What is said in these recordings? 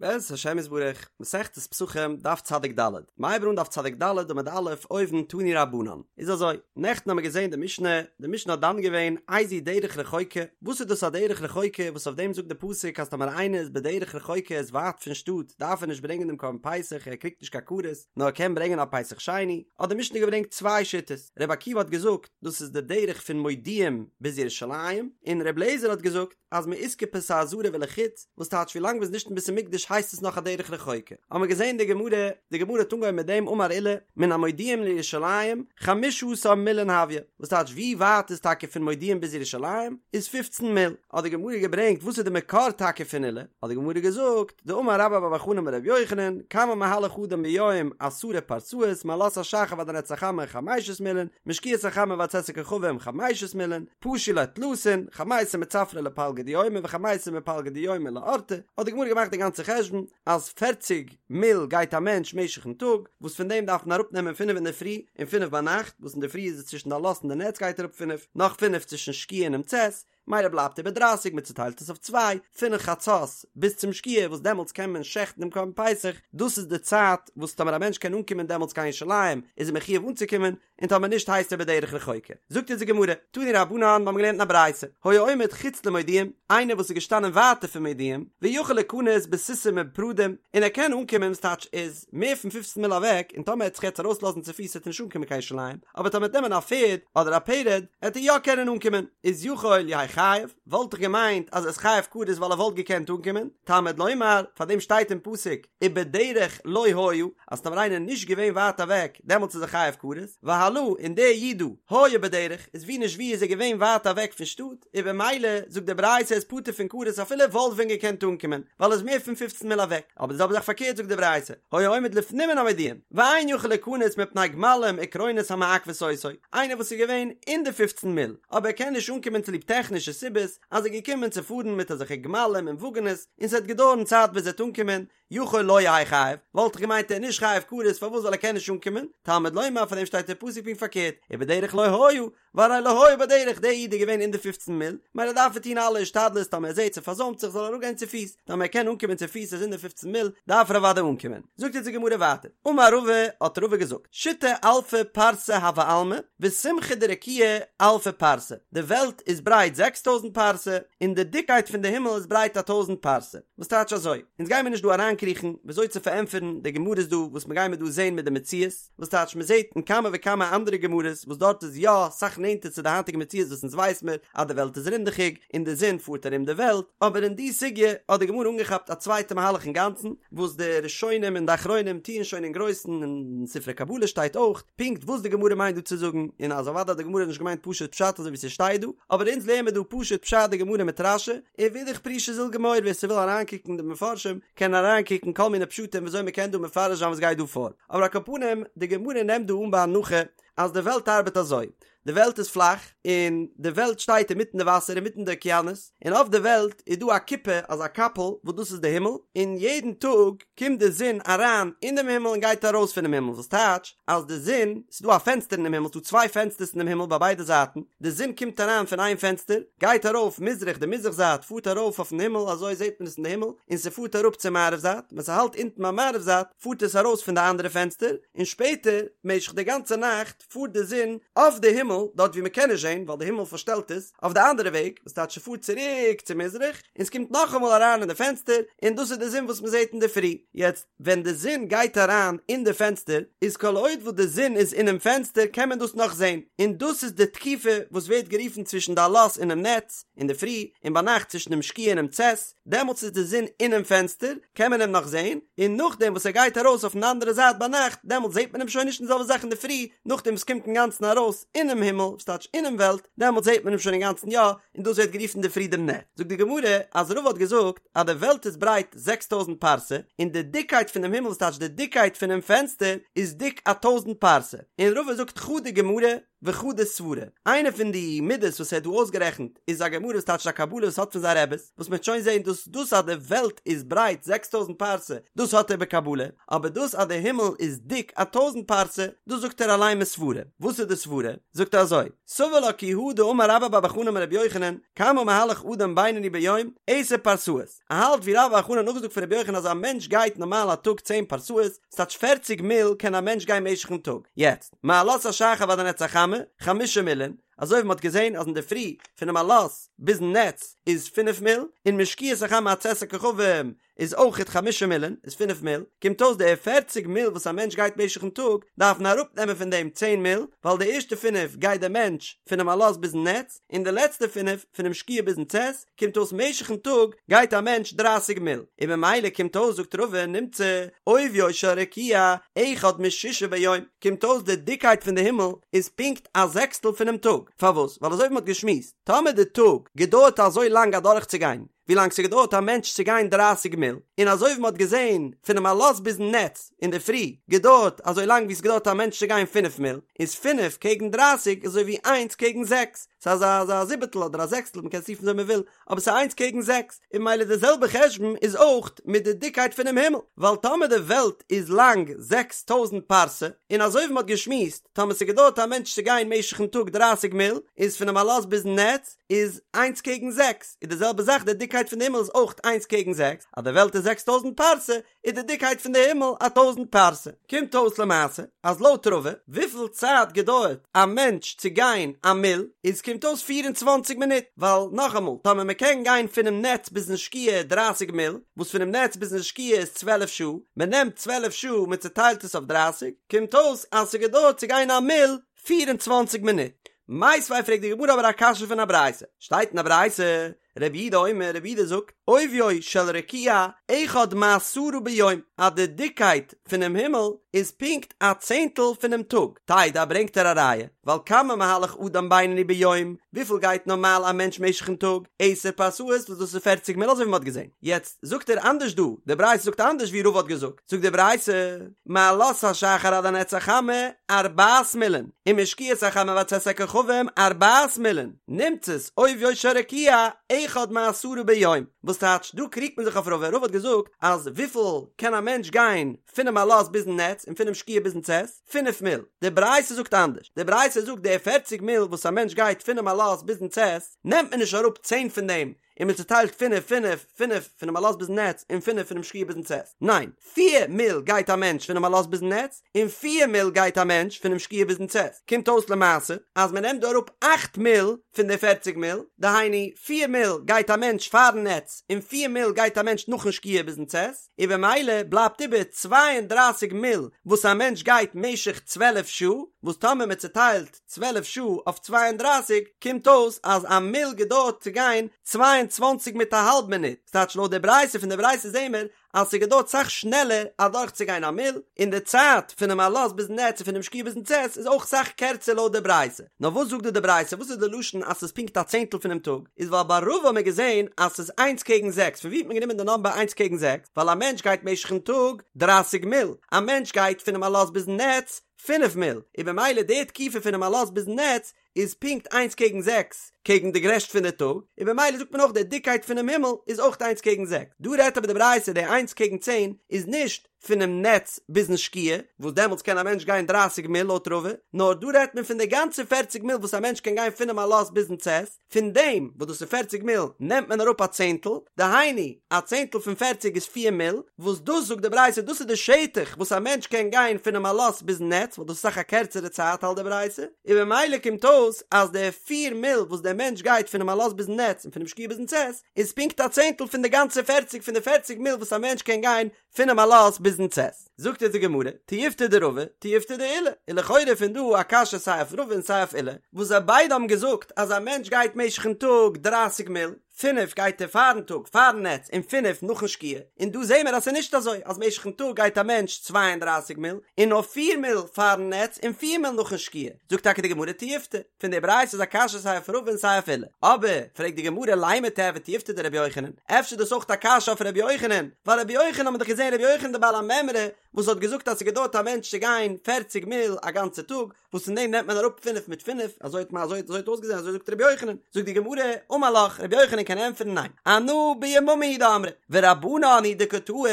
בעזרת השם יתברך, מסכת פסחים, דף צדיק ד', מ'הייבט אן דף צדיק ד' עמוד א', אויבן תנו רבנן. איז אזוי, נעכטן האמיר געזען די משנה, די משנה האט דן געווען איזו דרך רחוקה, וואס איז דאס א דרך רחוקה וואס אויף דעם זאגט די פסוק אז טאמער איינער איז בדרך רחוקה איז ווייט פון שטאט דארף ער נישט ברענגען דעם קרבן פסח ער קריגט נישט קיין כרת נאר ער קען ברענגען א פסח שני, האט די משנה געברענגט צוויי שיטות, רבי עקיבא האט געזאגט דאס איז די דרך פון מודיעים ביז ירושלים, און רבי אליעזר האט געזאגט, אז מאיסקופת העזרה ולחוץ, וואס טייטש ווי לאנג מ'איז נישט אין בית המקדש הייסט עס נאך א דרך רחוקה. האמער געזען די גמרא, די גמרא האט אנגעהויבן מיט דעם אמר עולא, מן המודיעים לירושלים חמשה עשר מילין הויא, וואס טייטש ווי ווייט איז טאקע פון מודיעים ביז ירושלים, איז פופצן מיל. האט די גמרא געברענגט וואס איז די מקור טאקע פון עולא, האט די גמרא געזאגט, דאמר רבה בר בר חנה אמר רבי יוחנן, כמה מהלך אדם ביום עשרה פרסאות מעלות השחר ועד הנץ החמה חמשת מילין, משקיעת החמה ועד צאת הכוכבים חמשת מילין, פשו ליה תלתין, חמיסר מצפרא לפלגא דיומא וחמיסר מפלגא דיומא לאורתא, האט די גמרא געמאכט די גאנצע חשבון אז פערציג מיל גייט א מענטש משך'ן טאג, וואס פון דעם דארף מען אראפ נעמען פינף אינדערפרי און פינף ביינאכט, וואס אינדערפרי איז עס צווישן די עלות און די נץ גייט אראפ פינף, נאך פינף צווישן שקיעה און דעם צאת, מילא בלייבט איבער דרייסיג, מען צוטיילט עס אויף צוויי, פון חצות ביז צום שקיעה וואס דעמאלטס קען מען שעכטן דעם קרבן פסח, דאס איז די צייט וואס טאמער א מענטש קען אנקומען דעמאלטס קיין ירושלים איז ער מחיוב אנצוקומען, און טאמער נישט הייסט ער בדרך רחוקה. זאגט אונז די גמרא, תנו רבנן, מיר האבן געלערנט אין א ברייתא, היה עומד חוץ למודיעים, איינער וואס איז געשטאנען ווייטער פון מודיעים, ויכול ליכנס בסוסים ובפרדים, און ער קען אנקומען, ס'טייטש איז מער פון פופצן מיל אוועק, און טאמער ער וועט זיך יעצט ארויסלאזן צופיס וועט ער נישט אנקומען קיין ירושלים, אבער טאמער וועט נעמען א פערד אדער א פרד עט ער יא קענען אנקומען, איז יכול יהא חייב, וואלט איך געמיינט אז ער איז חייב כרת ווייל ער וואלט געקענט אנקומען, תלמוד לומר, פאר דעם שטייט אין פסוק ובדרך לא היה, אז טאמער איינער איז נישט געווען ווייט אוועק דעמאלטס איז ער חייב כרת, והלא און דער איד דא היה בדרך איז ווי נישט ווי איז ער געווען ווייט אוועק פון שטאט, און במילא זאגט די ברייתא ער איז פטור פון כרת אפילו ער וואלט ווען געקענט אנקומען ווייל ער איז מער פון פופצן מיל אוועק, אבער די זעלבע זאך פארקערט זאגט די ברייתא היה עומד לפנים מן המודיעים ואין יכול ליכנס מפני גמלים וקרונות המעכבות אותו, איינער וואס איז געווען אין די פופצן מיל אבער ער קען נישט אנקומען צוליב טעכנישע סיבות אז ער איז געקומען צו פארן מיט אזעלכע גמלים און וואגענעס און ס'וועט געדויערן צייט ביז ער וועט אנקומען, יכול לא יהא חייב, וואלט איך געמיינט ער איז נישט חייב כרת פארוואס ווייל ער קען נישט אנקומען, תלמוד לומר פאר דעם שטייט אין פסוק פונקט פארקערט, ובדרך לא היה, והרי לא היה בדרך, דער איד איז געווען אין די פופצן מיל, מילא דארף ער טון אלע השתדלות טאמער ער זעט ס'פארזוימט זיך זאל ער אראפגיין צופיס, טאמער ער קען אנקומען צופיס איז אין די פופצן מיל, דארף ער אוודאי אנקומען. זאגט אונז די גמרא ווייטער, אמר רבא, האט רבא געזאגט, שיתא אלפי פרסי הוי עלמא, וסומכא דרקיעא אלפא פרסה, די וועלט איז ברייט זעקס טויזנט פרסה, און די דיקקייט פון די הימל איז ברייט א טויזנט פרסה. וואס טייטש אזוי? אונז גיימיר נישט דא אריינקריכן וויאזוי צו פארענטפערן די גמרות דא וואס מ'גיימיר דא זעהן מיט די מציאות, וואס טייטש מ'זעהט אין כמה וכמה אנדערע גמרות וואס דארט איז יא סאך נענטער צו די היינטיגע מציאות וואס אונז ווייס מיר אז די וועלט איז רינדעכיג און די זון פארט ארום די וועלט, אבער אין די סוגיא האט די גמרא אנגעכאפט א צווייטע מהלך אינגאנצן וואס די ראשונים און די אחרונים טוען שוין אין גרויסן און אין ספרי קבלה שטייט אויך פונקט וואס די גמרא מיינט דא צו זאגן און אז אוודאי האט די גמרא נישט געמיינט פשוט פשט אזוי ווי ס'שטייט דא, אבער אונז לערן מיר דא פשוט פשט די גמרא מיט רש"י, און ואידך פירושא זיל גמור ווער ס'וויל אריינקוקן די מפרשים קען אריינקוקן כל מיני פשטים וויאזוי מ'קען דא מפרש זיין וואס גייט דא פאר, אבער על כל פנים די גמרא נעמט דא אן בהנחה אז די וועלט ארבעט אזוי, די וועלט איז פלאך און די וועלט שטייט אינמיטן די וואסער אינמיטן די אוקיינוס, און אויף די וועלט איז דא א כיפה אזא קאפל וואס דאס איז די הימל, און יעדן טאג קומט די זון אריין אין דעם הימל און גייט ארויס פונעם הימל, וואס טייטש אז די זון, ס'איז דא א פענסטער אינעם הימל, ס'איז דא צוויי פענסטערס אינעם הימל ביי ביידע זייטן, די זון קומט אריין פון איין פענסטער, גייט ארויף מזרח די מזרח זייט פארט ארויף אויפן הימל, אזוי זעט מען עס אין די הימל, און ס'פארט אראפ צו מערב זייט, ווען ס'האלט אונטן ביים מערב זייט, פארט עס ארויס פון די אנדערע פענסטער, און שפעטער, משך די גאנצע נאכט, פארט די זון אויף די הימל, דארט ווי מ'קען נישט זען, ווייל די הימל פארשטעלט עס, אויף די אנדערע וועג, וואס טייטש ס'פארט צוריק צו מזרח, און ס'קומט נאכאמאל אריין אין די פענסטער, און דאס איז די זון וואס מ'זעט אינדערפרי. יעצט, ווען די זון גייט אריין אין די פענסטער, איז כל עוד וואס די זון איז אינעם פענסטער קען מען דאס נאך זען, און דאס איז די תקופה וואס ווערט גערופן צווישן די עלות און דעם נץ, אינדערפרי, און ביינאכט צווישן דעם שקיעה און דעם צאת, דעמאלטס איז די זון אינעם פענסטער, קען מען אים נאך זען, און נאכדעם וואס ער גייט ארויס אויפן אנדערע זייט ביינאכט, דעמאלטס זעט מען אים שוין נישט, און די זעלבע זאך אינדערפרי, נאכדעם וואס קומט אינגאנצן ארויס אינעם הימל, וואס טייטש אינעם וועלט, דעמאלטס זעט מען אים שוין אינגאנצן יא, און דאס ווערט גערופן אינדערפרי דעם נץ. זאגט די גמרא אז רבא האט געזאגט אז די וועלט איז ברייט זעקס טויזנט פרסה, און די דיקקייט פונעם הימל, וואס טייטש די דיקקייט פונעם פענסטער, איז דיק א טויזנט פרסה, און רבא זאגט חדא גמרא. וחדא סברא, איינע פון די מידות וואס ער האט דא אויסגערעכנט איז א גמרא וואס טייטש א קבלה וואס האט פון זיין רעבעס, וואס מ'וועט שוין זען דאס דאס אז די וועלט איז ברייט 6000 פרסה דאס האט ער בקבלה, אבער דאס אז די הימל איז דיק א טויזנט פרסה דאס זאגט ער אליין מסברה, וואס איז די סברה? זאגט ער אזוי, סבר לה כי הא דאמר רבה בר בר חנה אמר רבי יוחנן, כמה מהלך אדם בינוני ביום, עשר פרסאות, ער האלט ווי רבה בר בר חנה האט נאכגעזאגט פון רבי יוחנן אז א מענטש גייט נארמאל א טאג צען פרסאות, ס'טייטש פערציג מיל קען א מענטש גיין משך'ן טאג, יעצט, מעלות השחר ועד הנץ החמה, חמשה מילין, אזוי ווי מ'האט געזען אז אינדערפרי פונעם עלות ביזן נץ איז פינף מיל, און משקיעת החמה עד צאת הכוכבים איז אויכעט חמשה מילין, איז פינף מיל, קומט אויס די פערציג מיל וואס א מענטש גייט משך'ן טאג, דארף מען אראפנעמען פון דעם צען מיל, ווייל די ערשטע פינף גייט דער מענטש פונעם עלות ביזן נץ, און די לעצטע פינף פונעם שקיעה ביזן צאת, קומט אויס משך'ן טאג גייט א מענטש דרייסיג מיל, און ממילא קומט אויס זאגט רבא נמצא עוביו של רקיע אחד משישה ביום, קומט אויס די דיקייט פון די הימל איז פונקט א זעקסטל פונעם טאג, פארוואס? ווייל אזוי ווי מ'האט געשמועסט, טאמער די טאג געדויערט אזוי לאנג אדורכצוגיין ווי לאנג ס'געדויערט א מענטש צו גיין דרייסיג מיל, און אזוי ווי מ'האט געזען פונעם עלות ביזן נץ אינדערפרי געדויערט אזוי לאנג ווי ס'געדויערט א מענטש צו גיין פינף מיל, איז פינף קעגן דרייסיג איז אזוי ווי איינס קעגן זעקס, ס'איז אזא אזא זיבעטל אדער א זעקסטל מ'קען עס רופן וויאזוי מ'וויל, אבער ס'איז איינס קעגן זעקס, און ממילא די זעלבע חשבון איז אויך מיט די דיקקייט פונעם הימל, ווייל טאמער די וועלט איז לאנג 6000 פרסה, און אזוי ווי מ'האט געשמועסט, טאמער ס'געדויערט א מענטש צו גיין משך'ן טאג דרייסיג מיל, איז פונעם עלות ביזן נץ איז איינס קעגן זעקס, איז די זעלבע זאך די דיקקייט פון די הימל איז אויך איינס קעגן זעקס, אז די וועלט איז 6000 פרסה, איז די דיקקייט פון די הימל א טויזנט פרסה. קומט אויס למעשה אז לויט רבא וויפיל צייט געדויערט א מענטש צו גיין א מיל איז קומט אויס 24 מינוט ווייל נאכאמאל טאמער מען קען גיין פונעם נץ ביזן שקיעה 30 מיל וואס פונעם נץ ביזן שקיעה איז 12 שעה מען נעמט 12 שעה מען צוטיילט עס אויף 30 קומט אויס אז ס'געדויערט צו גיין א מיל 24 מינוט. מיתיבי פרעגט די גמרא אבער א קשיא פון א ברייתא שטייט אין א ברייתא רבי יהודה אומר, רבי יהודה זאגט, עוביו של רקיע אחד מעשרה ביום, אז די דיקקייט פונעם הימל איז פונקט א צענטל פונעם טאג, תדע ברענגט ער א ראיה, ווייל כמה מהלך אדם בינוני ביום, וויפיל גייט נארמאל א מענטש משך'ן טאג, עשר פרסאות וואס דאס איז פערציג מיל אזוי ווי מען האט געזען, יעצט זאגט ער אנדערש דא, די ברייתא זאגט אנדערש ווי רבא האט געזאגט, זאגט די ברייתא, מעלות השחר עד הנץ החמה ארבעת מילין, ומשקיעת החמה ועד צאת הכוכבים ארבעת מילין, נמצאת עוביו של רקיע אחד מעשרה ביום, וואס טייטש דא קריגט מען זיך אויף רבא, רבא האט געזאגט אז וויפיל קען א מענטש גיין פונעם עלות ביזן נץ און פונעם שקיעה ביזן צאת, פינף מיל, די ברייתא זאגט אנדערש, די ברייתא זאגט די פערציג מיל וואס א מענטש גייט פונעם עלות ביזן צאת, נעמט מען נישט אראפ צען פון דעם און מען צוטיילט פינף פינף פינף פונעם עלות ביזן נץ און פינף פונעם שקיעה ביזן צאת, ניין, פיר מיל גייט א מענטש פונעם עלות ביזן נץ און פיר מיל גייט א מענטש פונעם שקיעה ביזן צאת, קומט אויס למעשה אז מען נעמט דא אראפ אכט מיל פון די פערציג מיל, דהיינו פיר מיל גייט א מענטש פארן נץ און פיר מיל גייט א מענטש נאכן שקיעה ביזן צאת, און במילא בלייבט איבער 32 מיל וואס א מענטש גייט משך 12 שעה, וואס טאמער מען צוטיילט 12 שעה אויף 32 קומט אויס אז א מיל געדויערט צו גיין 22 מיט א האלב מינוט, ס'טייטש לויט די ברייתא פון די ברייתא זעהן מיר אז ס'געדויערט סאך שנעלער אדורכצוגיין א מיל, און די צייט פונעם עלות ביזן נץ און פונעם שקיעה ביזן צאת איז אויך סאך קערצער לויט די ברייתא. נאר וואס זאגט דא די ברייתא? וואס איז די לשון אז ס'איז פונקט א צענטל פונעם טאג? איז ווייל ביי רבא האט מען געזען אז ס'איז איינס קעגן זעקס, פון ווי האט מען גענומען די נאמבער איינס קעגן זעקס? ווייל א מענטש גייט משך'ן טאג דרייסיג מיל, א מענטש גייט פונעם עלות ביזן נץ פינף מיל, און במילא די תקופה פונעם עלות ביזן נץ איז פונקט איינס קעגן זעקס קעגן די גרעשט פון די טאג, און במילא זאגט מען אויך די דיקקייט פונעם הימל איז אויך איינס קעגן זעקס. דא רעדט אבער די ברייתא די איינס קעגן צען איז נישט פונעם נץ ביזן שקיעה, וואס דעמאלטס קען א מענטש גיין דרייסיג מיל לויט רבא, נאר דא רעדט מען פון די גאנצע פערציג מיל וואס א מענטש קען גיין פונעם עלות ביזן צאת, פון דעם וואס דאס איז פערציג מיל נעמט מען אראפ א צענטל, דהיינו א צענטל פון פערציג איז פיר מיל, וואס דאס זאגט די ברייתא דאס איז די שטח וואס א מענטש קען גיין פונעם עלות ביזן נץ ווייל דאס איז אסאך א קערצערע צייט האלט די ברייתא, און במילא קומט אויס אז די פיר מיל וואס דער מענטש גייט פונעם עלות ביזן נץ און פונעם שקיעה ביזן צאת איז פונקט א צענטל פון די גאנצע פערציג פון די פערציג מיל וואס א מענטש קען גיין פונעם עלות ביזן צאת. זאגט אונז די גמרא, תיובתא דרבא, תיובתא דעולא, איז לכאורה פון דא א קשיא סיי אויף רבא און סיי אויף עולא, וואס זיי ביידע האבן געזאגט אז א מענטש גייט משך'ן טאג דרייסיג מיל, פינף גייט ער פארן טאג פארן נץ און פינף נאכן שקיעה, און דא זעהן מיר אז ס'איז נישט אזוי אז משך'ן טאג גייט א מענטש 32 מיל און נאר פיר מיל פארן נץ און פיר מיל נאכן שקיעה, זאגט טאקע די גמרא תיובתא, פון די ברייתא איז א קשיא סיי אויף רבא און סיי אויף עולא, אבער פרעגט די גמרא לימא תיהוי תיובתא דרבי יוחנן, אפשר איז דאס אויך א קשיא אויף רבי יוחנן, ווייל רבי יוחנן האט מען דאך געזעהן רבי יוחנן די בעל המימרא. וואס האט געזאגט אז ס'געדויערט א מענטש צו גיין פערציג מיל א גאנצע טאג, וואס פון דעם נעמט מען אראפ פינף מיט פינף, אזוי האט אזוי האט אויסגעזען אזוי זאגט רבי יוחנן, זאגט די גמרא, אמר לך, רבי יוחנן קען ענטפערן ניין, אנא ביממא הוא דאמרי, ורבנן הוא דקא טעו,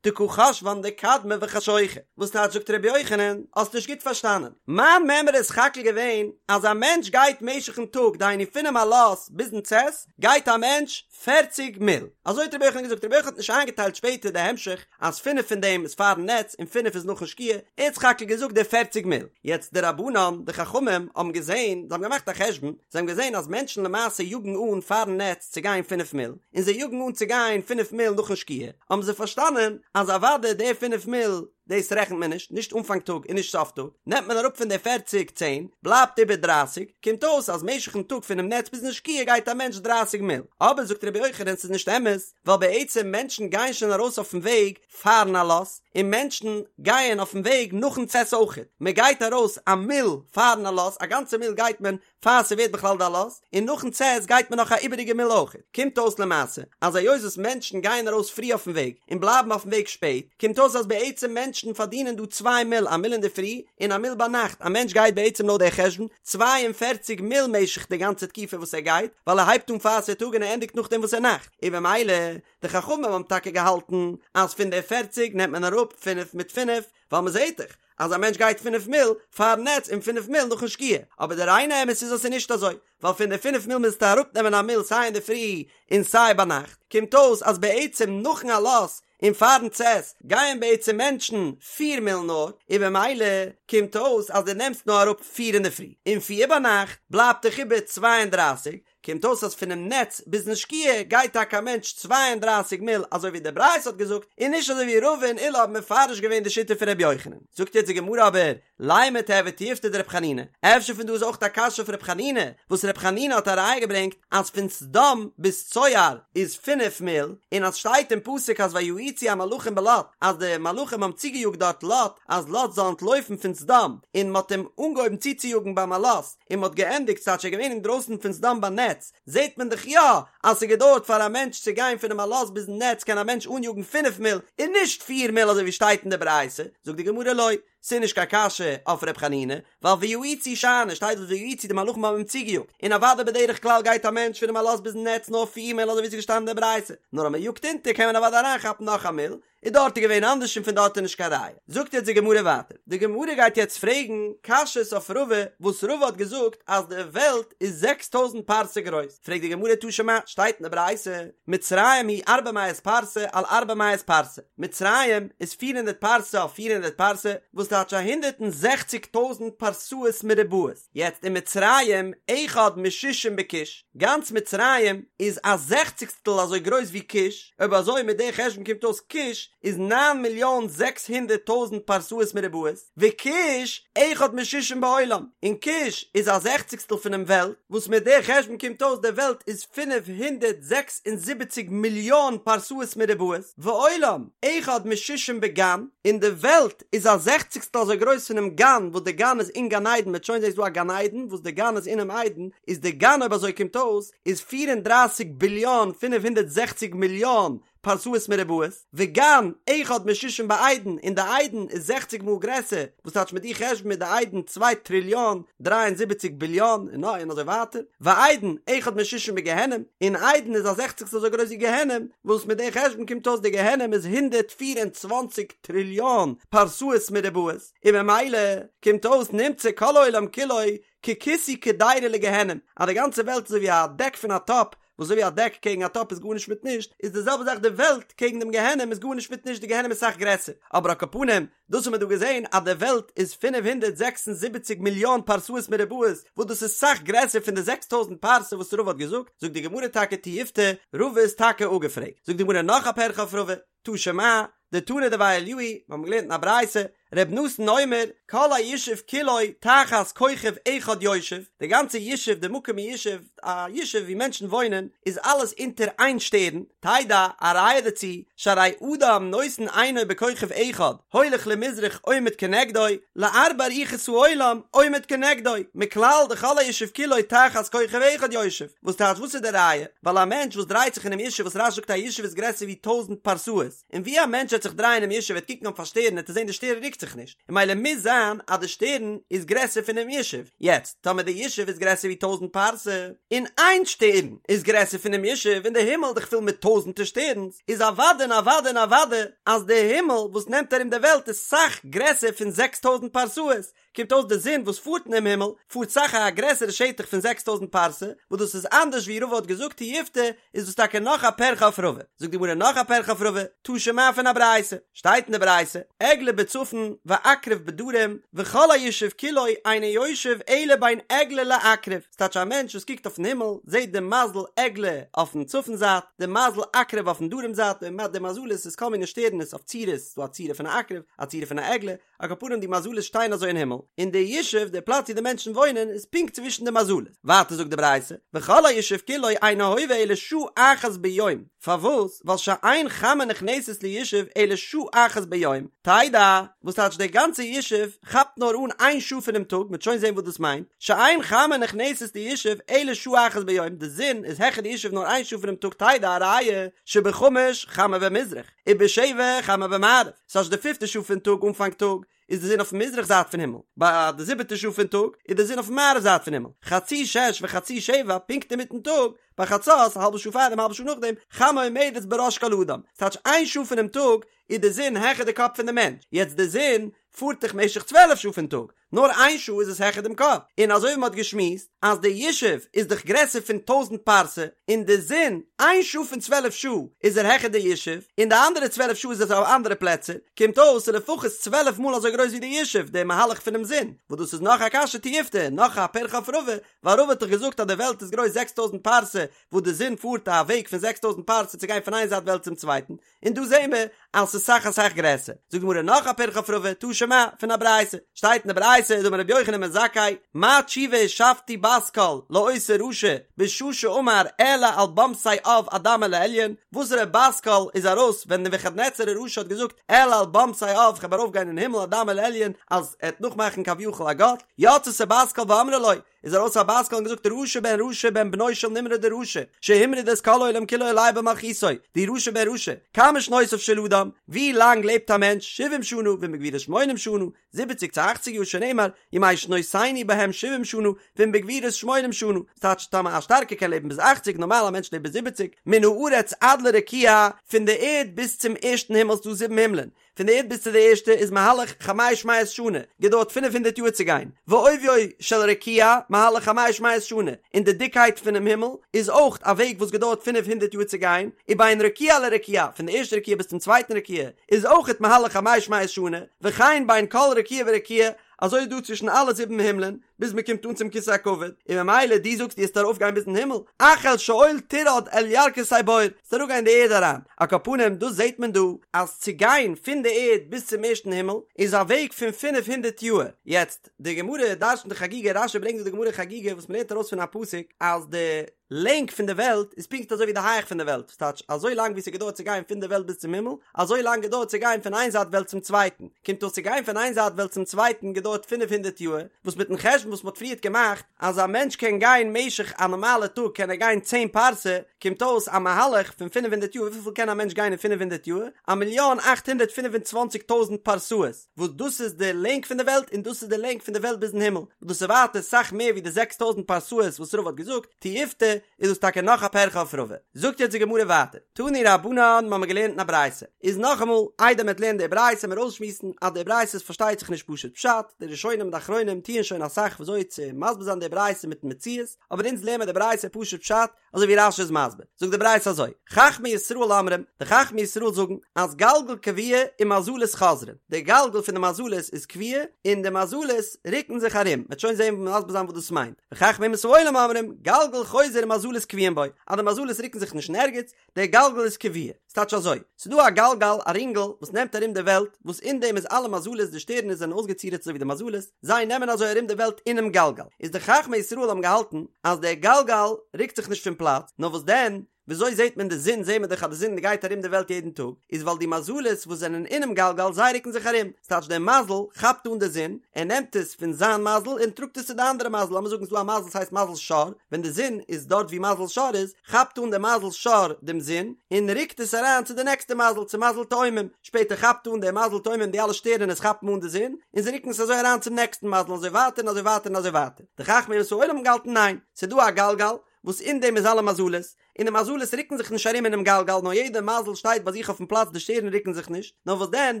דקא חשבן דקדמה וחשוכא, וואס טייטש זאגט רבי יוחנן, האסט נישט גוט פארשטאנען, מיין מימרא איז סך הכל געווען אז א מענטש גייט משך'ן טאג דהיינו פונעם עלות ביזן צאת גייט א מענטש פערציג מיל, אזוי האט רבי יוחנן געזאגט, רבי יוחנן האט נישט איינגעטיילט שפעטער די המשך אז פינף פון דעם איז פארן נץ און פינף איז נאכן שקיעה, ער האט סך הכל געזאגט די פערציג מיל, יעצט די רבנן, די חכמים, האבן געזען, זיי האבן געמאכט א חשבון, זיי האבן געזען אז מענטשן למעשה יאגן אן פארן נץ צו גיין פינף מיל, און זיי יאגן אן צו גיין פינף מיל נאכן שקיעה, האבן זיי פארשטאנען אז אוודאי די פינף מיל, דאס רעכנט מען נישט, נישט אנפאנג טאג און נישט סוף טאג, נעמט מען אראפ פון די פערציג צען, בלייבט איבער דרייסיג, קומט אויס אז משך'ן טאג פונעם נץ ביזן שקיעה גייט א מענטש דרייסיג מיל. אבער זאגט רבי יוחנן ס'איז נישט אמת, ווייל בעצם מענטשן גייען שוין ארויס אויפן וועג פארן עלות, און מענטשן גייען אויפן וועג נאכן צאת אויכעט, מען גייט ארויס א מיל פארן עלות, א גאנצע מיל גייט מען פאר ס'ווערט בכלל די עלות, און נאכן צאת גייט מען נאך א איבעריגע מיל אויכעט. קומט אויס למעשה, אז היות וואס מענטשן גייען ארויס פרי אויפן וועג, און בלייבן אויפן וועג שפעט, קומט אויס אז בעצם מענטשן פארדינען דא צוויי מיל, א מיל אינדערפרי, און א מיל ביינאכט, א מענטש גייט בעצם לויט דער חשבון, 42 מיל משך די גאנצע תקופה וואס ער גייט, ווייל ער הייבט אן פאר ס'איז טאג און ער ענדיגט נאכדעם וואס ס'איז נאכט, און במילא, די חכמים האבן טאקע געהאלטן אז פון די פערציג נעמט מען אראפ פינף מיט פינף, ווייל מ'זעט דאך אז א מענטש גייט פינף מיל פארן נץ און פינף מיל נאכן שקיעה, אבער די ריינע אמת איז אז ס'איז נישט אזוי, ווייל פון די פינף מיל מוזטו אראפנעמען א מיל סיי אינדערפרי און סיי ביינאכט, קומט אויס אז בעצם נאכן עלות און פארן צאת גייען בעצם מענטשן פיר מיל נאר, און במילא קומט אויס אז דו נעמסט נאר אראפ פיר אינדערפרי און פיר ביינאכט, בלייבט דיך איבער 32, קומט אויס אז פונעם נץ ביזן שקיעה גייט טאקע א מענטש 32 מיל אזוי ווי די ברייתא האט געזאגט, און נישט אזוי ווי רבא און עולא האבן מפרש געווען די שיטה פון ר' יוחנן. זאגט יעצט די גמרא אבער, לימא תיהוי תיובתא דר' חנינא, אפשר פון דא איז אויך א קשיא אויף ר' חנינא, וואס ר' חנינא האט א ראיה געברענגט אז פון סדום ביז צוער איז פינף מיל, און אז שטייט אין פסוק אז ויאיצו המלאכים בלוט אז די מלאכים האבן צוגעיאגט דארט לוט אז לוט זאל אנטלויפן פון סדום, און מ'האט אים אנגעהויבן צוצויאגן ביים עלות, און מ'האט געענדיגט ס'טייטש ער איז געווען אינדרויסן פון סדום ביי נץ, זעט מען דאך יא אז ס'האט געדויערט פאר א מענטש צו גיין פונעם עלות ביזן נץ קען א מענטש אניאגן פינף מיל און נישט פיר מיל אזוי ווי שטייט אין די ברייתא, זאגט די גמרא לא, ס'איז נישט קיין קשיא אויף ר' חנינא, ווייל ויאיצו שאני, שטייט דארט ויאיצו די מלאכים האבן אים צוגעיאגט, און אוודאי בדרך כלל גייט א מענטש פונעם עלות ביזן נץ נאר פיר מיל אזוי ווי ס'איז געשטאנען אין די ברייתא, נאר אז מ'יאגט אונטער קען מען אוודאי אריינכאפן נאך א מיל, איז דארט איז געווען אנדערש און פון דארט איז נישט קיין ראיה. זאגט יעצט די גמרא ווייטער, די גמרא גייט יעצט פרעגן קשיות אויף רבא וואס רבא האט געזאגט אז די וועלט איז זעקס טויזנט פרסה גרויס, פרעגט די גמרא תא שמע, שטייט אין די ברייתא, מצרים היא ארבע מאות פרסה על ארבע מאות פרסה, מצרים איז פיר הונדערט פרסה אויף פיר הונדערט פרסה, וואס טייטש א הונדערט און זעכציג טויזנט פרסאות מרובעות, יעצט ומצרים אחד משישים בכוש, גאנץ מצרים איז א זעכציגסטל אזוי גרויס ווי כוש, אויב אזוי מיט די חשבון קומט אויס כוש איז נײַן מיליאן זעקס הונדערט טויזנט פרסאות מרובעות, וכוש אחד משישים בעולם, און כוש איז א זעכציגסטל פונעם וועלט, וואס מיט די חשבון קומט אויס די וועלט איז 576 מיליאן פרסאות מרובעות, ועולם אחד משישים בגן, און די וועלט איז א זעכציגסטל אזוי גרויס פונעם גן, וואס די גן איז אין גן עדן, מ'וועט שוין זעהן ס'איז דא א גן עדן, וואס די גן איז אינעם עדן, איז די גן אויב אזוי קומט אויס איז 34 ביליאן 560 מיליאן פרסאות מרובעות, וגן אחד משישים בעדן, און די עדן איז זעכציג מאל גרעסער, וואס טייטש מיט די חשבון איז די עדן צוויי טריליאן דריי און זיבעציג ביליאן און נאך און אזוי ווייטער, ועדן אחד משישים בגיהנום, און עדן איז א זעכציגסטל אזוי גרויס ווי גיהנום, וואס מיט די חשבון קומט אויס די גיהנום איז 124 טריליאן פרסאות מרובעות, און ממילא קומט אויס נמצא כל העולם כולו ככיסוי קדירה לגיהנום, אז די גאנצע וועלט איז אזוי ווי א דעק פון א טאפ, וואס אזוי ווי א דעק קעגן א טאפ איז גארנישט מיט נישט, איז די זעלבע זאך די וועלט קעגן דעם גיהנום איז גארנישט מיט נישט, די גיהנום איז סאך גרעסער, אבער על כל פנים, דאס האט מען דא געזען אז די וועלט איז 576 מיליאן פרסאות מרובעות, וואס דאס איז סאך גרעסער פון די 6000 פרסה וואס רבא האט געזאגט, זאגט די גמרא טאקע תיובתא, רבא איז טאקע אפגעפרעגט, זאגט די גמרא נאך א פירכא אויף רבא, תא שמע, דתנא דבי אליהו, מיר האבן געלערנט אין א ברייתא, ר' נתן אומר, כל הישוב כולו תחת כוכב אחד יושב, די גאנצע ישוב, די מקום הישוב, א ישוב ווי מענטשן וואוינען, איז אלעס אונטער איין שטערן, תדע, א ראיה דערצו, שהרי אדם נותן עינו בכוכב אחד, הולך למזרח עומד כנגדו, לארבע רוחות העולם עומד כנגדו, מכלל דכל הישוב כולו תחת כוכב אחד יושב, וואס טייטש וואס איז די ראיה? ווייל א מענטש וואס דרייט זיך אינעם ישוב וואס רש"י זאגט א ישוב איז גרעסער ווי טויזענט פרסאות, און ווי א מענטש וועט זיך דרייען אינעם ישוב וועט קוקן אויף א שטערן וועט ער זען די שטערן רוקט זיך נישט, און ממילא מוז זיין אז די שטערן איז גרעסער פונעם ישוב, יעצט טאמער די ישוב איז גרעסער ווי טויזענט פרסה, און איין שטערן איז גרעסער פונעם ישוב און די הימל איז דאך פול מיט טויזענטער שטערנס, איז אוודאי און אוודאי און אוודאי אז די הימל וואס נעמט ארום די וועלט איז סאך גרעסער פון זעקס טויזענט פרסאות, קומט אויס די זון וואס פארט אינעם הימל פארט סאך א גרעסערע שטח פון זעקס טויזנט פרסה, וואס דאס איז אנדערש ווי רבא האט געזאגט תיובתא, איז דאס טאקע נאך א פירכא אויף רבא. זאגט די גמרא נאך א פירכא אויף רבא, תא שמע פון א ברייתא, שטייט אין די ברייתא, עגלה בצפון ועקרב בדרום, וכל הישוב כולו אינו יושב אלא בין עגלה לעקרב, ס'טייטש א מענטש וואס קוקט אויפן הימל זעט די מזל עגלה אויפן צפון זייט, די מזל עקרב אויפן דרום זייט, די מזלות איז כל מיני שטערנעס אויף צורות, ס'דא א צורה פון א עקרב, א צורה פון א עגלה, על כל פנים די מזלות שטייען אזוי אין הימל, און די ישוב, די פלאץ ווי די מענטשן וואוינען, איז פונקט צווישן די מזלות. ווייטער זאגט די ברייתא, וכל הישוב כולו אינו הווה אלא שעה אחת ביום, פארוואס? ווייל שאין חמה נכנסת לישוב אלא שעה אחת ביום, תדע, וואס טייטש דער גאנצער ישוב כאפט נאר אן איין שעה פונעם טאג, מ'וועט שוין זען וואס דאס מיינט, שאין חמה נכנסת לישוב אלא שעה אחת ביום, די זון איז העכער די ישוב נאר איין שעה פונעם טאג תדע א ראיה שבחמש חמה במזרח, ובשבע חמה במערב, ס'טייטש די פיפטע שעה פון טאג אנפאנג טאג איז די זון אויפן מזרח זייט פון הימל, ביי די זיבעטע שעה פון טאג איז די זון אויפן מערב זייט פון הימל, חצי שש וחצי שבע פונקט אינמיטן טאג, ביי חצות א האלבע שעה פארדעם א האלבע שעה נאכדעם, חמה עומדת בראש כל אדם, ס'טייטש איין שעה פונעם טאג איז די זון העכער די קאפ פון די מענטש, יעצט די זון פארט דאך משך צוועלף שעה פון טאג, נאר איין שעה איז עס העכער דעם קאפ, און אזוי ווי מען האט געשמועסט אז די ישוב איז דאך גרעסער פון טויזנט פרסה, און די זון איין שעה פון צוועלף שעה איז ער העכער די ישוב, און די אנדערע צוועלף שעה איז עס אויף אנדערע פלעצער, קומט אויס ס'איז לפחות צוועלף מאל אזוי גרויס ווי די ישוב, די מהלך פונעם זון, וואס דאס איז נאך א קשיא תיובתא, נאך א פירכא אויף רבא, ווייל רבא האט דאך געזאגט אז די וועלט איז גרויס זעקס טויזנט פרסה, וואס די זון פארט א וועג פון זעקס טויזנט פרסה צו גיין פון איין זייט וועלט צום צווייטן, און דא זעהן מיר אז ס'איז סאך אסאך גרעסער. זאגט די גמרא נאך א פירכא אויף רבא, תא שמע, פון א ברייתא. שטייט אין די ברייתא, דאמר רבי יוחנן בן זכאי, מה תשובה השבתי בת קול לאותו רשע בשעה שאמר אעלה על במתי עב אדמה לעליון, וואסערע בת קול איז ארויס ווען נבוכדנצר הרשע האט געזאגט אעלה על במתי עב כ'וועל ארויפגיין אין הימל אדמה לעליון אז ער וועט נאכמאכן כביכול א גאט, יצתה בת קול ואמרה לו, איז ארויס א בת קול און געזאגט רשע בן רשע בן בנו של נמרוד הרשע שהמריד את כל העולם כולו עליה במלכותו דו רשע בן רשע כמה שנותיו של אדם ווי לאנג לעבט א מענטש שבעים שנה ואם בגבורות שמונים שנה זיבעציג צו אכציג יאר שנאמר ימי שנותינו בהם שבעים שנה ואם בגבורות שמונים שנה ס'טייטש טאמער א שטארקער קען לעבן ביז אכציג נארמאל א מענטש לעבט ביז זיבעציג מן הארץ עד לרקיע פון די ערד ביז צום ערשטן הימל ס'דא זיבן הימלען פון די ערד ביז צו די ערשטע איז מהלך חמש מאות שנה, געדויערט פינף הונדערט יאר צו גיין, ועוביו של רקיע מהלך חמש מאות שנה, און די דיקקייט פונעם הימל איז אויך א וועג וואס געדויערט פינף הונדערט יאר צו גיין, ובין רקיע לרקיע, פון די ערשטע רקיע ביז צום צווייטן רקיע, איז אויכעט מהלך חמש מאות שנה, וכן בין כל רקיע ורקיע, אזוי איז דא צווישן אלע זיבן הימלען, ביז מען קומט אן צום כסא הכבוד, און ממילא דו זאגסט דו וועסט ארויף גיין ביזן הימל, אך אל שאול תרד אל ירכתי בור, וועסט אראפ גיין אין די ערד אריין, על כל פנים דאס זעט מען דא, אז צו גיין פון די ערד ביז צום ערשטן הימל, איז א וועג פון פינף הונדערט יאהר, יעצט, די גמרא דרש'נט אין חגיגה, רש"י ברענגט דא די גמרא אין חגיגה וואס מען לערנט ארויס פון א פסוק, אז די לענג פון די וועלט איז פונקט אזוי ווי די הייך פון די וועלט, ס'טייטש אזוי לאנג ווי ס'געדויערט צו גיין פון די וועלט ביז צום הימל, אזוי לאנג געדויערט צו גיין פון איין זייט וועלט צום צווייטן, קומט אויס צו גיין פון איין זייט וועלט צום צווייטן געדויערט פינף הונדערט יאהר, וואס מיטן חשבון וואס מ'האט פריערט געמאכט אז א מענטש קען גיין משך א נארמאלע טאג קען ער גיין צען פרסה, קומט אויס א מהלך פון פינף הונדערט יאר, וויפיל קען א מענטש גיין אין פינף הונדערט יאר? א מיליאן אכט הונדערט פינף און צוואנציג טויזנט פרסאות, וואס דאס איז די לענג פון די וועלט און דאס איז די לענג פון די וועלט ביזן הימל, וואס דאס איז ווייטער סאך מער ווי די זעקס טויזנט פרסאות וואס רבא האט געזאגט, תיובתא, איז דאס טאקע נאך א פירכא אויף רבא. זאגט יעצט די גמרא ווייטער, תנו רבנן, מ'האמיר געלערנט אין א ברייתא, איז נאכאמאל, איידער מ'וועט לערנען די ברייתא מיר אויסשמועסן אז די ברייתא איז פארשטייט זיך נישט פשוט פשט, די ראשונים און די אחרונים טוען שוין אסאך וויאזוי צו מסביר זיין די ברייתא מיטן מציאות, אבער אונז לערנען מיר די ברייתא פשוט פשט, אזוי ווי רש"י איז מסביר, זאגט די ברייתא אזוי, חכמי ישראל אומרים, די חכמי ישראל זאגן, אז גלגל קבוע ומזלות חוזרין, די גלגל פון די מזלות איז קבוע, און די מזלות רוקן זיך ארום, מ'וועט שוין זען מסביר זיין וואס דאס מיינט, וחכמי אומות העולם אומרים, גלגל חוזר ומזלות קבועים בו, אז די מזלות רוקן זיך נישט אין ערגעץ, דער גלגל איז קבוע. ס'טייטש אזוי, ס'דא א גלגל, א רינגל, וואס נעמט ארום די וועלט, וואס אין דעם איז אלע מזלות, די שטערנעס זענען אויסגעצירט אזוי ווי די מזלות, זיי נעמען אזוי ארום די וועלט אינעם גלגל. איז די חכמי ישראל האבן געהאלטן אז דער גלגל רוקט זיך נישט פון פלאץ, נאר וואס דען, וויאזוי זעט מען די זון, זעט מען דאך אז די זון גייט ארום די וועלט יעדן טאג, איז ווייל די מזלות וואס זענען אינעם גלגל זיי רוקן זיך ארום, ס'טייטש דער מזל כאפט אן די זון, ער נעמט עס פון זיין מזל און טראגט עס צו די אנדערע מזל, לאמיר זאגן ס'דא א מזל ס'הייסט מזל שור, ווען די זון איז דארט ווי מזל שור איז, כאפט אן די מזל שור דעם זון און רוקט עס אריין צו די נעקסטע מזל, צו מזל תאומים, שפעטער כאפט אן דער מזל תאומים די אלע שטערענעס כאפן אן די זון און זיי רוקן עס אזוי אריין צום נעקסטן מזל און אזוי ווייטער און אזוי ווייטער און אזוי ווייטער. די חכמי אומות העולם האבן געהאלטן ניין, ס'איז דא א גלגל וואס אין דעם איז אלע מזלות, און די מזלות רוקן זיך נישט ארום אינעם גלגל נאר יעדע מזל שטייט ביי זיך אויפן פלאץ די שטערן רוקן זיך נישט, נאר וואס דען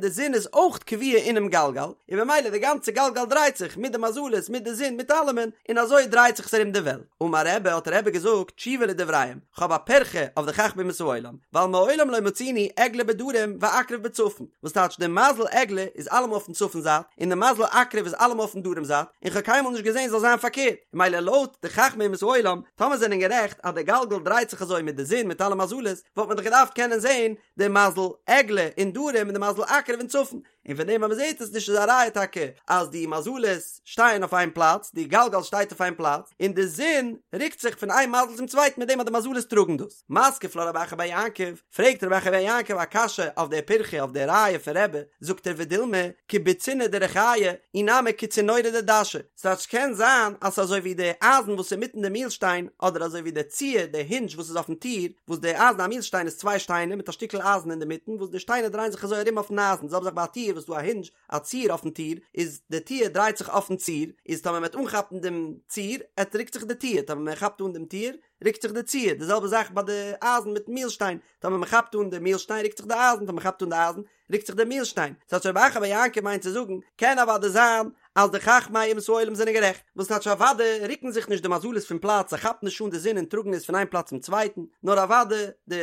די זון איז אויך קבוע אינעם גלגל, און במילא די גאנצע גלגל דרייט זיך מיט די מזלות מיט די זון מיט אלעמען, און אזוי דרייט זיך עס ארום די וועלט. אמר רבי האט רבי געזאגט תשובה לדבריהם, כ'האב א פירכא אויף די חכמי אומות העולם, ווייל מעולם לא מצינו עגלה בדרום ועקרב בצפון, וואס טייטש די מזל עגלה איז אלעמאל אויפן צפון זייט, און די מזל עקרב איז אלעמאל אויפן דרום זייט, און כ'האב קיינמאל נישט געזען ס'זאל זיין פארקערט, ממילא לויט די חכמי אומות העולם, טאמער זענען גערעכט אז די גלגל דרייט זיך אזוי מיט די זון מיט אלע מזלות, וואלט מען דאך געדארפט קענען זען די מזל עגלה אין דרום און די מזל עקרב אין צפון, און פון דעם אז מען זעט עס נישט איז א ראיה טאקע אז די מזלות שטייען אויף איין פלאץ, די גלגל שטייט אויף איין פלאץ, און די זון רוקט זיך פון איין מזל צום צווייטן מיט דעם אז די מזלות טראגן דאס. מתקיף לה רב אחא בר יעקב, פרעגט רב אחא בר יעקב א קשיא אויף דער פירכא אויף דער ראיה פון רבי, זאגט ער ודילמא כבוצינא דריחיא אי נמי כצינורא דדשא, ס'טייטש קען זיין אז ס'איז אזוי ווי די אייזן וואס איז אינמיטן די מילשטיין, אדער אזוי ווי די ציר, די הינדזש וואס איז אויפן טיר, וואס די אייזן א מילשטיין איז צוויי שטיינער מיט א שטיקל אייזן אינדערמיטן וואס די שטיינער דרייען זיך אזוי ארום אויפן אייזן, די זעלבע זאך ביי א טיר וואס איז דא א הינדזש, א ציר אויפן טיר, איז די טיר דרייט זיך אויפן ציר, איז טאמער מ'וועט אנכאפן דעם ציר, עט רוקט זיך די טיר, טאמער מען כאפט אן דעם טיר, רוקט זיך די ציר, די זעלבע זאך ביי די אייזן מיטן מילשטיין, טאמער מען כאפט אן די מילשטיין רוקט זיך די אייזן, טאמער מען כאפט אן די אייזן, רוקט זיך דער מילשטיין. ס'טייטש רב אחא בר יעקב מיינט צו זאגן, קען אוודאי זיין אז די חכמי אומות העולם זענען גערעכט, וואס טייטש אוודאי רוקן זיך נישט די מזלות פון פלאץ, זיי כאפן נישט אן די זון און טראגן עס פון איין פלאץ צום צווייטן, נאר אוודאי די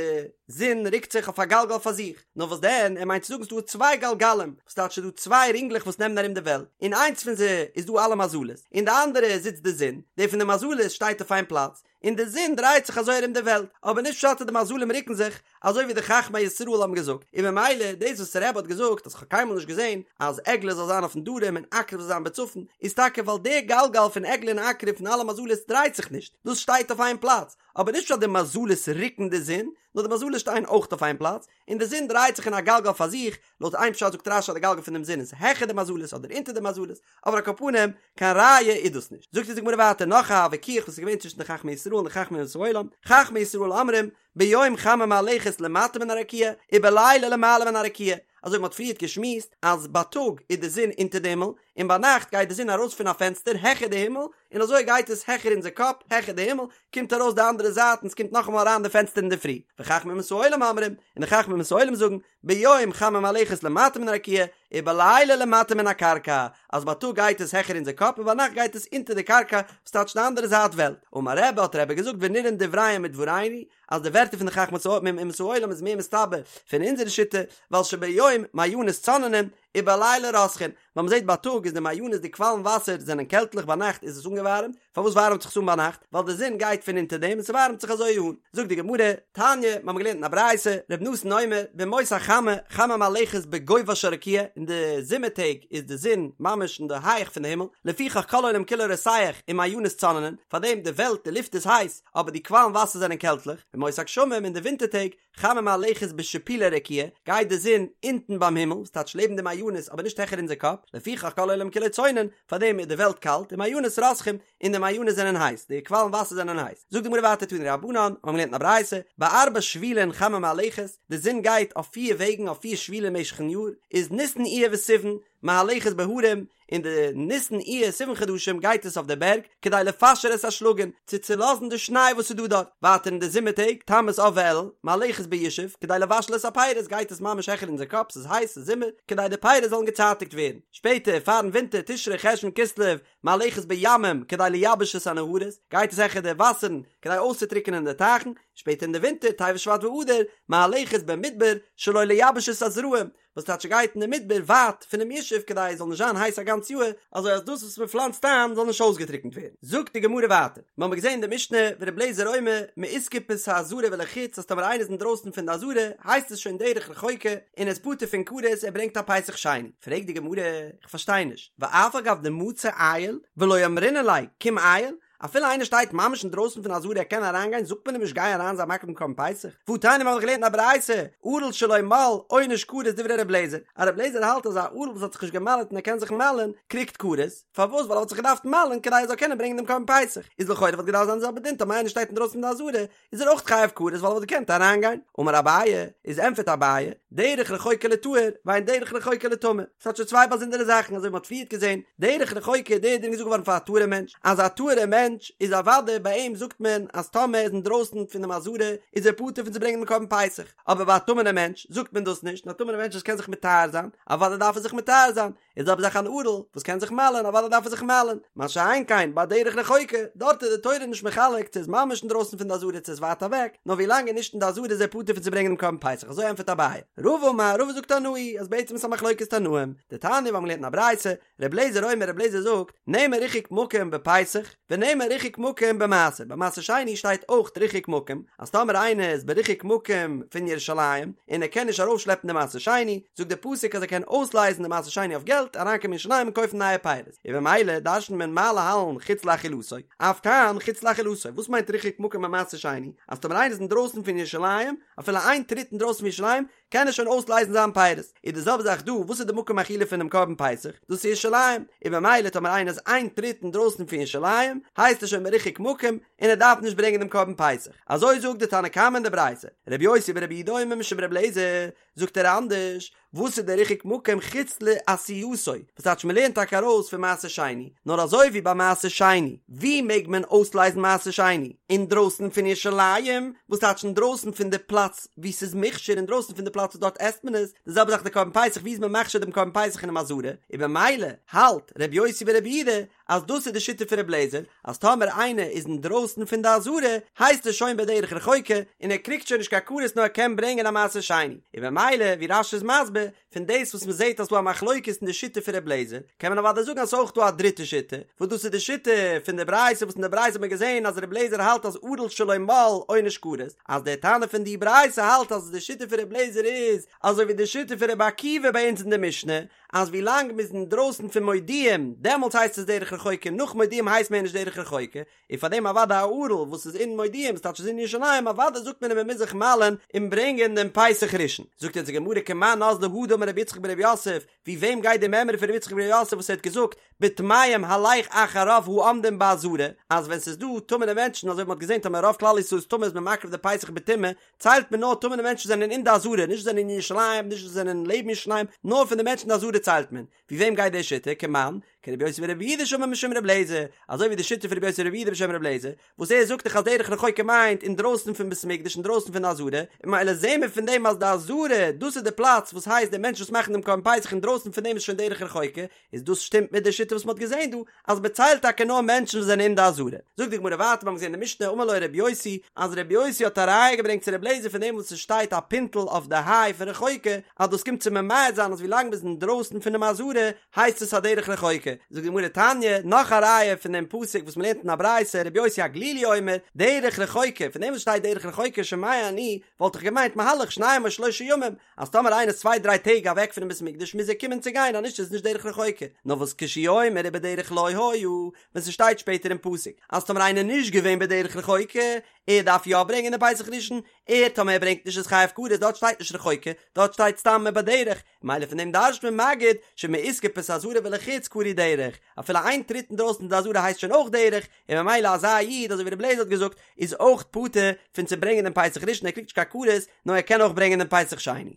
זון רוקט זיך אויף א גלגל פאר זיך. נאר וואס דען, ער מיינט צו זאגן ס'דא צוויי גלגלים, וואס טייטש ס'דא צוויי רינגלעך וואס נעמען ארום די וועלט, אין איינס פון זיי איז דא אלע מזלות, אין די אנדערע זיצט די זון, די פון די מזלות שטייט אויף איין פלאץ, און די זון דרייט זיך אזוי ארום די וועלט, אבער נישט פשט אז די מזלים רוקן זיך, אזוי ווי די חכמי ישראל האבן געזאגט, און ממילא דאס וואס רבי האט געזאגט אז כ'האב קיינמאל נישט געזען אז עגלה זאל זיין אויפן דרום און עקרב זאל זיין בצפון, איז טאקע ווייל דער גלגל פון עגלה און עקרב פון אלע מזלות דרייט זיך נישט, דאס שטייט אויף איין פלאץ, אבער נישט פשט אז די מזלות רוקן די זון, נאר די מזלות שטייען אויך אויף איין פלאץ, און די זון דרייט זיך אין א גלגל פאר זיך, לויט איין פשט זאגט רש"י אז די גלגל פונעם זון איז העכער די מזלות אדער אונטער די מזלות, אבער על כל פנים, קיין ראיה איז דאס נישט. זאגט אונז די גמרא ווייטער נאך א וויכוח וואס איז געווען צווישן די חכמי ישראל און די חכמי אומות העולם, חכמי ישראל אומרים, ביום חמה מהלכת למטה מן הרקיע, ובלילה למעלה מן הרקיע, אזוי ווי מ'האט פריערט געשמועסט אז בייטאג איז די זון אונטער די הימל, און ביינאכט גייט די זון ארויס פון א פענסטער העכער די הימל, און אזוי גייט עס העכער אונזער קאפ, העכער די הימל, קומט ארויס די אנדערע זייט און ס'קומט נאכאמאל אריין די פענסטער אינדערפרי. וחכמי אומות העולם אומרים, און די חכמי אומות העולם זאגן, ביום חמה מהלכת למטה מן הרקיע, ובלילה למטה מן הקרקע, אז בייטאג גייט עס העכער אונזער קאפ און ביינאכט גייט עס אונטער די קרקע, וואס טייטש די אנדערע זייט וועלט. אמר רבי האט רבי געזאגט ונראין דבריהם מדברינו, אז די ווערטער פון די חכמי אומות העולם איז מער מסתבר פון אונזערע שיטה, ווייל שביום מעיינות צוננין, ובלילה רותחין, ווייל מ'זעט בייטאג איז די מעיינות די קוואלן וואסער זענען קעלטליך ביינאכט איז עס אנגעווארעמט, פארוואס ווארעמט זיך עס אן ביינאכט? ווייל די זון גייט פון אונטער דעם און ס'ווארעמט זיך אזוי אן. זאגט די גמרא, תניא, מיר האבן געלערנט אין א ברייתא, ר' נתן אומר, בימות החמה, חמה מהלכת בגובה של רקיע, אין די זומער טעג איז די זון ממש אין די הייך פון די הימל, לפיכך כל העולם כולו רותח ומעיינות צוננין, פארדעם די וועלט, די לופט איז הייס, אבער די קוואלן וואסער זענען קעלטליך, בימות הגשמים, אין די ווינטער טעג, חמה מהלכת בשיפולי רקיע, גייט די זון אונטן ביים הימל, וואס טייטש לעבן די מעיינות אבער נישט העכער אונזער קאפ, לפיכך כל העולם כולו צונן, פארדעם איז די וועלט קאלט, ומעיינות רותחין, און די מעיינות זענען הייס, די קוואלן וואסער זענען הייס. זאגט די גמרא ווייטער תנו רבנן, מיר האבן געלערנט אין א ברייתא, בארבע שבילין חמה מהלכת, די זון גייט אויף פיר וועגן אויף פיר שבילים משך'ן יאר, איז ניסן אייר וסיוון, מהלכת בהרים, אין די ניסן אייר סיוון חדשים גייט עס אויף די בערג כדי לפשר את השלגים, צו צולאזן די שניי וואס איז דא דארט, ווייטער אין די זומער טעג, תמוז אב ואלול, מהלכת בישוב, כדי לבשל את הפירות גייט עס ממש העכער אונזער קאפ, ס'איז הייס, ס'איז זומער, כדי די פירות זאלן געצייטיגט ווערן, שפעטער פארן ווינטער תשרי חשוון כסלו, מהלכת בימים, כדי לייבש את הנהרות, גייט עס העכער די וואסערן, כדי אויסצוטריקענען די טייכן, שפעטער אין די ווינטער טבת שבט ואדר, מהלכת במדבר, שלא לייבש את הזרעים, וואס טייטש ער גייט אין די מדבר ווייט פונעם ישוב כדי עס זאל נישט זיין הייס א גאנץ יאהר, אזוי אז דאס וואס מען פלאנצט איין זאל נישט אויסגעטריקנט ווערן. זאגט די גמרא ווייטער, מיר האבן געזען אין די משנה ור' אליעזר אומר מאיסקופת העזרה ולחוץ אז טאמער איינער איז אינדרויסן פון די עזרה הייסט עס שוין דרך רחוקה און ער איז פטור פון כרת ער ברענגט א פסח שני, פרעגט די גמרא, איך פארשטיי נישט, ואף על גב דמצי עייל ולא אמרינן ליה קום עייל, אפילו איינער שטייט ממש אינדרויסן פון עזרה ער קען אריינגיין זאגט מען אים נישט גיי אריין זיי מקריב דעם קרבן פסח, והתניא מיר האבן דאך געלערנט אין א ברייתא, ערל שלא מל עונש כרת דברי ר' אליעזר, אז ר' אליעזר האלט אז א ערל וואס האט זיך נישט געמל'עט און ער קען זיך מל'ען קריגט כרת, פארוואס ווייל ער וואלט זיך געדארפט מל'ען כדי ער זאל קענען ברענגען דעם קרבן פסח, איז לכאורה וואלט געדארפט זיין די זעלבע דין טאמער איינער שטייט אינדרויסן פון די עזרה איז ער אויך חייב כרת ווייל ער וואלט געקענט אריינגיין, אמר אביי, איז ענטפערט אביי, דרך רחוקה לטהור, ואין דרך רחוקה לטמא, ס'האט שוין צוויי באזונדערע זאכן אזוי ווי מ'האט פריערט געזען, דרך רחוקה איז דער דין געזאגט געווארן פאר א טהור'ע מענטש, אז א טהור'ע מענטש איז אוודאי ביי אים זאגט מען אז טאמער ער איז אינדרויסן פונעם עזרה איז ער פטור פון צו ברענגען דעם קרבן פסח, אבער ביי א טמא'נער מענטש זאגט מען דאס נישט, און א טמא'נער מענטש וואס קען זיך מטהר זיין, אוודאי דארף ער זיך מטהר זיין, איז זעלבע זאך אן ערל וואס קען זיך מל'ען אוודאי דארף ער זיך מל'ען, מה שאין כן ביי דרך רחוקה, דארט איז די תורה נישט מחלק צו איז ממש אינדרויסן פון די עזרה צו איז ווייט אוועק, נאר ווי לאנג ער נישט אין די עזרה איז ער פטור פון צו ברענגען דעם קרבן פסח, אזוי ענטפערט אביי. רבא אמר, רבא זאגט תנאי, אז בעצם איז א מחלוקת תנאים, דתניא מיר האבן געלערנט אין א ברייתא, ר' אליעזר אומר ר' אליעזר זאגט, נאמר ריחוק מקום בפסח, ונאמר ריחוק מקום במעשר, ביי מעשר שני שטייט אויך ריחוק מקום, אז טאמער איינער איז בריחוק מקום פון ירושלים, און ער קען נישט ארויפשלעפן די מעשר שני, זאגט דער פסוק אז ער קען אויסלייזן די מעשר שני אויף געלט, אריינקומען אין ירושלים און קויפן נייע פירות, און במילא דרש'נט מען מה להלן חוץ לאכילתו, אף כאן חוץ לאכילתו, וואס מיינט ריחוק מקום ביי מעשר שני? אז טאמער איינער איז אינדרויסן פון ירושלים, אפילו איין טריט אינדרויסן פון ירושלים, קען ער שוין אויסלייזן זיין פירות, איז די זעלבע זאך דא, וואס איז די מקום אכילה פונעם קרבן פסח? דאס איז ירושלים, און במילא טאמער איינער איז איין טריט אינדרויסן פון ירושלים, הייסט ער שוין בריחוק מקום, און ער דארף נישט ברענגען דעם קרבן פסח. אזוי זאגט די תנא קמא אין די ברייתא, רבי יוסי ברבי יהודה אומר משום רבי אליעזר, זאגט ער אנדערש, וואס איז דער ריחוק מקום חוץ לעשייתו, וואס טייטש מען לערנט טאקע ארויס פון מעשר שני, נאר אזוי ווי ביי מעשר שני, ווי מעג מען אויסלייזן מעשר שני? אינדרויסן פון ירושלים, וואס טייטש אינדרויסן פון די פלאץ וואו ס'איז מוכשר, אינדרויסן פון די פלאץ וואס דארט עסט מען עס, די זעלבע זאך די קרבן פסח, ווי איז מען מכשיר דעם קרבן פסח אינעם עזרה, און במילא האלט ר' יוסי ברבי יהודה אז דאס איז די שיטה פון ר' אליעזר, אז טאמער איינער איז אינדרויסן פון די עזרה, הייסט עס שוין בדרך רחוקה, און ער קריגט שוין נישט קיין כרת נאר ער קען ברענגען א מעשר שני, און במילא ווי רש"י איז מסביר, פון דאס וואס מען זעט אז ס'דא א מחלוקת אין די שיטה פון ר' אליעזר, קען מען אוודאי זאגן אז ס'איז אויך דא א דריטע שיטה, וואס דאס איז די שיטה פון די ברייתא וואס אין די ברייתא האט מען געזען אז ר' אליעזר האלט אז ערל שלא מל עונש כרת, אז דער תנא פון די ברייתא האלט אז די שיטה פון ר' אליעזר איז אזוי ווי די שיטה פון רבי עקיבא ביי אונז אין די משנה, אז ווי לאנג מ'איז אינדרויסן פון מודיעים דעמאלטס הייסט עס דרך רחוקה נאך מודיעים הייסט מער נישט דרך רחוקה, און פאר דעם אוודאי א ערל וואס איז אין מודיעים ס'טייטש איז אין ירושלים אוודאי זאגט מען אים ער מוז זיך מל'ען און ברענגען דעם פסח ראשון. זאגט אונז די גמרא כמאן אזלא הא דאמר רבי יצחק ברבי יוסף, ווי וועם גייט די מימרא פון רבי יצחק ברבי יוסף וואס ער האט געזאגט בטמאים הלך אחר רוב העומדים בעזרה אז ווען ס'איז דא טמא'נע מענטשן אזוי ווי מ'האט געזען טאמער רוב כלל ישראל איז טמא איז מען מקריב די פסח בטומאה ציילט מען נאר טמא'נע מענטשן זענען אין די עזרה נישט זענען אין ירושלים נישט זענען לעבן ירושלים נאר פון די מענטשן אין די עזרה ציילט מען ווי וועם גייט די שיטה? כמאן? כרבי יוסי ברבי יהודה שאמר משום רבי אליעזר, אזוי ווי די שיטה פון רבי יוסי ברבי יהודה בשם רבי אליעזר, וואס ער זאגט דאך אז דרך רחוקה מיינט אינדרויסן פון בית המקדש אינדרויסן פון די עזרה, און ממילא זעהן מיר פון דעם אז די עזרה דאס איז די פלאץ וואס הייסט די מענטשן וואס מאכן דעם קרבן פסח אינדרויסן פון דעם איז שוין דרך רחוקה, איז דאס שטימט מיט די שיטה וואס מען האט געזעהן דא אז מען ציילט טאקע נאר מענטשן וואס זענען אין די עזרה. זאגט די גמרא ווייטער מיר האבן געזעהן אין די משנה אמר לו רבי יוסי אז רבי יוסי האט א ראיה געברענגט צו רבי אליעזר פון דעם וואס עס שטייט א פינטל אויף די היי פון רחוקה אז דאס קומט צו ממעט זיין אז ווי לאנג מען איז אינדרויסן פונעם עזרה הייסט עס א דרך רחוקה. זאגט די גמרא תניא נאך א ראיה פון דעם פסוק וואס מען לערנט אין א ברייתא רבי יוסי הגלילי אומר דרך רחוקה פון דעם וואס שטייט דרך רחוקה שומע אני וואלט איך געמיינט מהלך שניים או שלושה ימים אז טאמער איינער איז צוויי דריי טעג אוועק פונעם בית המקדש מוז ער קומען צו גיין אז נישט איז עס נישט דרך רחוקה, נאר וואס כשהוא אומר ובדרך לא היה, ווען ס'שטייט שפעטער אין פסוק אז טאמער איינער איז נישט געווען בדרך רחוקה, ער דארף יא ברענגען די פסח ראשון, ער טאמער ער ברענגט נישט איז חייב כרת, דארט שטייט נישט רחוקה, דארט שטייט סתם ובדרך, ממילא פון דעם דרש'ט מען מגיד שמאיסקופת העזרה ולחוץ קרוי דרך, אפילו איין טריט אינדרויסן די עזרה הייסט שוין אויך דרך, און ממילא אזא איד אזוי ווי רבי אליעזר האט געזאגט איז אויך פטור פון צו ברענגען דעם פסח ראשון ער קריגט נישט קיין כרת נאר ער קען אויך ברענגען דעם פסח שני.